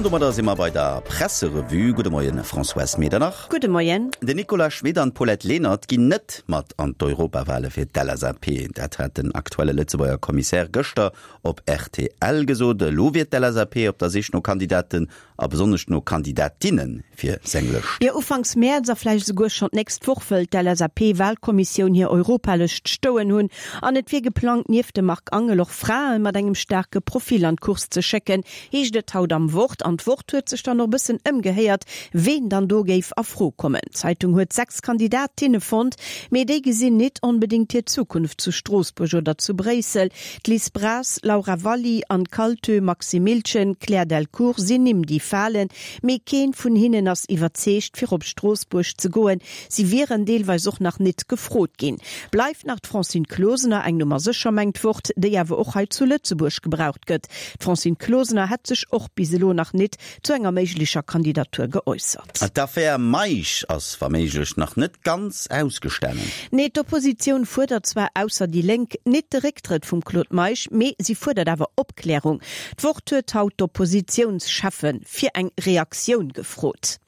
An domadder si mer bei der Presserevue. Gudde Moien, Françoise Medernach. Gudde Moien. Den Nicolas Schmit an d'Paulette Lenert ginn net mat an d'Europawale fir d'LSAP. Dat hat den aktuelle Lëtzebuerger Kommissär gëschter op rtl gesot. Elo wier d'LSAP op der Sich no Kandidaten a besonnesch no Kandidatinne fir seng Lëscht. Jo, ufanks Mäerz a vläicht esouguer schonn d'nächst Woch wëll d'LSAP-Walkommissioun hir Europalëscht stoen hunn. An et wier geplangt, nieft dem Marc Angel och Frae mat engem staarke Profil an d'Course ze schécken, heescht et haut am Wort. An d'Wort huet sech dann och e bëssen ëmgehéiert, ween dann do géif a Fro kommen. D'Zeitung huet 6 Kandidatinne fonnt, mee déi gesinn nit onbedéngt hir Zukunft zu Stroossbuerg oder zu Bréissel. D'Liz Braz, Laura Valli, Anne Kaltö, Maxime Miltgen, Claire Delcourt sinn Nimm déi falen, mee keen vun hinnen ass iwwerzeegt fir op Stroossbuerg ze goen. Si wieren deelweis och nach nit gefrot ginn. Bleift nach d'Francine Closener, eng Nummer sécher mengt d'Wort, déi awer och hei zu Lëtzebuerg gebraucht gëtt. D'Francine Closener hätt sech och bis elo nach nit zu enger méiglecher Kandidatur geäussert. D'Affär Meisch ass wa méiglech nach net ganz ausgestanen. Nee, d'Oppositioun fuerdert zwar, ausser déi Lénk, nit de Récktrëtt vum Claude Meisch, mee si fuerdert awer Opklärung. D'Wort huet haut d'Oppositiounscheffe fir eng Reaktioun gefrot.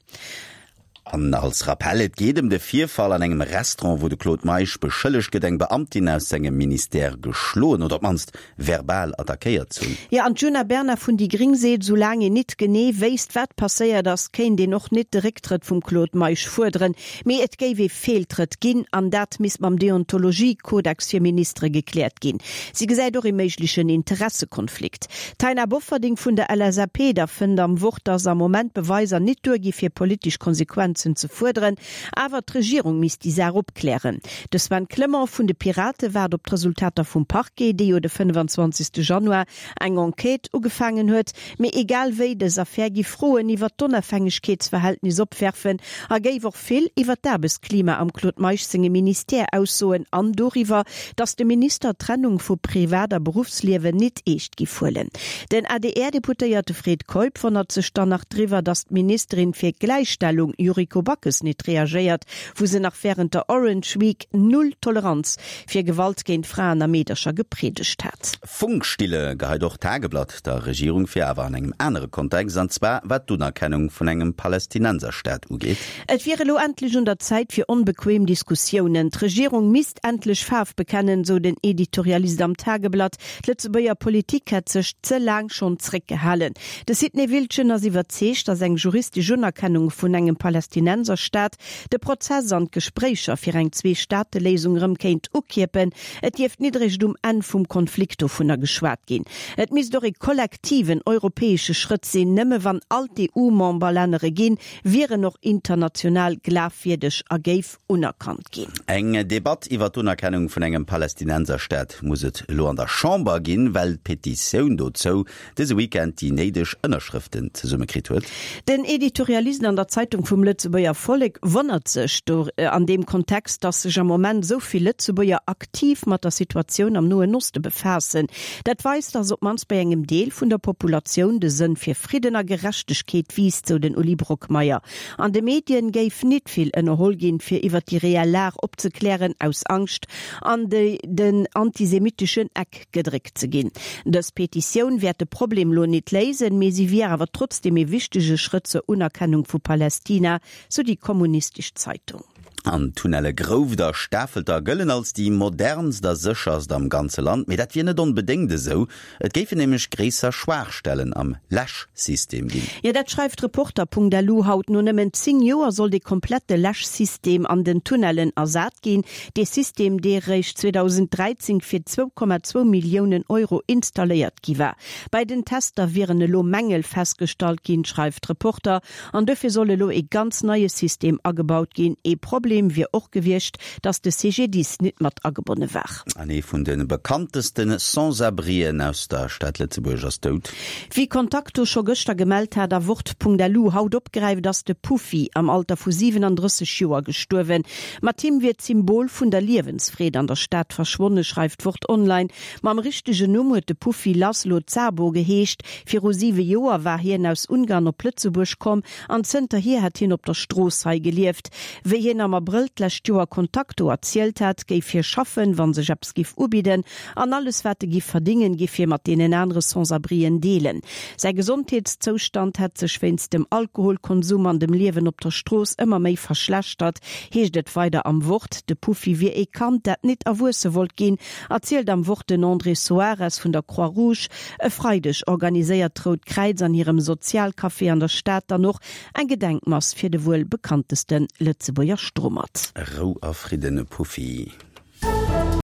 An als Rappell, Et geet ëm de Virfall an engem Restaurant, wou de Claude Meisch beschëllegt gëtt, eng Beamtin aus sengem Ministère geschloen oder op d'mannst verbal attackéiert ze hunn. Jo, an d'Djuna Bernard vun déi gréng seet, soulaang een nit genee wéisst, wat passéiert ass, kéint een och nit de Récktrëtt vum Claude Meisch fuerderen. Mee et géif ee Feeltrëtt ginn an dat misst mam Deontologie-Kodex fir Ministere gekläert ginn. Si gesäit och ee méiglechen Interessekonflikt. D'Taina Bofferding vun der LSAP da fënnt am Wort, datt am Moment d'Beweiser nit duer gi fir politesch Konsequenzen ze fuerderen, awer d'Regierung misst déi Saach opklären. De Sven Clement vun de Pirate waart op d'Resultater vum Parquet, dee jo de 25 Januar eng Enquête ugefaangen huet. Mee egal wéi, dës Affär gi Froen iwwer d'Onafhängegkeetsverhältnis opwerfen a géif och vill iwwer d'Aarbechtsklima am Claude Meisch senge Ministère aussoen an doriwwer, datt de Minister d'Trennung vu Privat a Beruffsliewen nit eescht giff huelen. Den ADR-Deputéierte Fred Keup wonnert sech dann nach driwwer, datt d'Ministerin fir Gläichstellung Yuriko Backes nit reagéiert, wou se nach wärend der Orange Week Null Toleranz fir Gewalt géint Fraen a Meedercher gepriedegt hat. Funkstille geheit och d'Tageblatt der Regierung vir, awer an engem anere Kontext, an zwar wat d'Unerkennung vun engem Palästinenserstaat ugeet. Et wier elo endlech un der Zäit fir onbequem Diskussiounen. D'Regierung misst endlech Faarf bekennen, sou den Editorialist am Tageblatt. D'Lëtzebuerger Politik hätt sech ze laang schonn zréckgehalen. De Sidney Wiltgen ass iwwerzeegt, datt eng juristesch Unerkennung vun engem Palästinenserstaat de Prozess an d'Gespréicher fir eng Zwee-Staate-Léisung erëm kéint ukierpen. Et dierft nit eréischt um Enn vum Konflikt dovunner geschwat ginn. Et misst och ee kollektiven europäesche Schrëtt sinn. Nëmme wann all d'EU-Memberlännere ginn, wier en och international glafwierdeg a géif unerkannt ginn. Eng Debatt iwwer d'Unerkennung vun engem Palästinenserstaat muss et elo an der Chamber ginn, well d'Petitioun dozou dëse Weekend déi néideg Ënnerschrëften zesummekritt huet. Den Editorialist an der Zeitung vum Lëtzebuerger Vollek wonnert sech do an deem Kontext, datt sech am Moment esou vill Lëtzebuerger aktiv mat der Situatioun am Noen Oste befaassen. Dat weist, datt op d'mannst bei engem Deel vun der Populatioun de Sënn fir Fridden a Gerechtegkeet wiisst, sou den Uli Brockmeyer. An de Medien géif nit vill ënnerholl ginn, fir iwwer déi reell Lag opzeklären, aus Angscht an den antisemitteschen Eck gedréckt ze ginn. Dës Petitioun wäert de Problem lo nit léisen, mee si wier awer trotzdeem ee wichtege Schrëtt zur Unerkennung vu Palästina, sou déi kommunistesch Zeitung. An d'Tunnelle Grouft a Stafelter gëllen als déi modernst a sécherst am ganze Land. Mee dat wier net onbedéngt esou. Et géifen nämlech gréisser Schwaachstellen am Läschsystem ginn. Jo, dat schreift Reporter.lu haut. No nëmmen 10 Joer soll de komplette Läschsystem an den Tunnellen ersat ginn. Dee System, dee réischt 2013 fir 2,2 Milliounen Euro installéiert gi war. Bei den Tester wieren elo Mängel festgestallt ginn, schreift Reporter. An dofir soll elo ee ganz neie System agebaut ginn. Ee Problem wier och gewiescht, datt de CGDIS nit mat agebonne war. An ee vun de bekanntesten Sans-abrien aus der Stad Lëtzebuerg ass dout. Wéi Contacto scho gëschter gemellt hat a Wort.lu haut opgräift, ass de Puffy am Alter vu 37 Joer gestuerwen. Mat him wier d'Symbol vun der Liewensfreed an der Stad verschwonne, schreift Wort Online. Mam richtegen Numm huet de Puffy Laszlo Szabo geheescht. Viru siwe Joer war hien aus Ungarn op Lëtzebuerg komm an zënterhier hätt hien op der Strooss hei gelieft. Wéi hien am. Abrëll d'lescht Joer Contacto erzielt hat, géif hie schaffen, wa sech eppes giff ubidden, an alles wat e giff verdingen, giff hie mat deenen anere Sans-abrien deelen. Säi Gesondheetszoustand hätt sech wéinst dem Alkoholkonsum an dem Liewen op der Strooss ëmmer méi verschlechtert, heescht et weider am Wort. De Puffi wier ee Kand, dat nit erwuesse wollt ginn, erzielt am Wort den André Soares vun der Croix-Rouge. E Freideg organiséiert d'Rout Kräiz an hirem Sozialcafé an der Stad dann och eng Gedenkmass fir de wuel bekannteste Lëtzebuerger Strummert. Rou a Fridden, Puffi.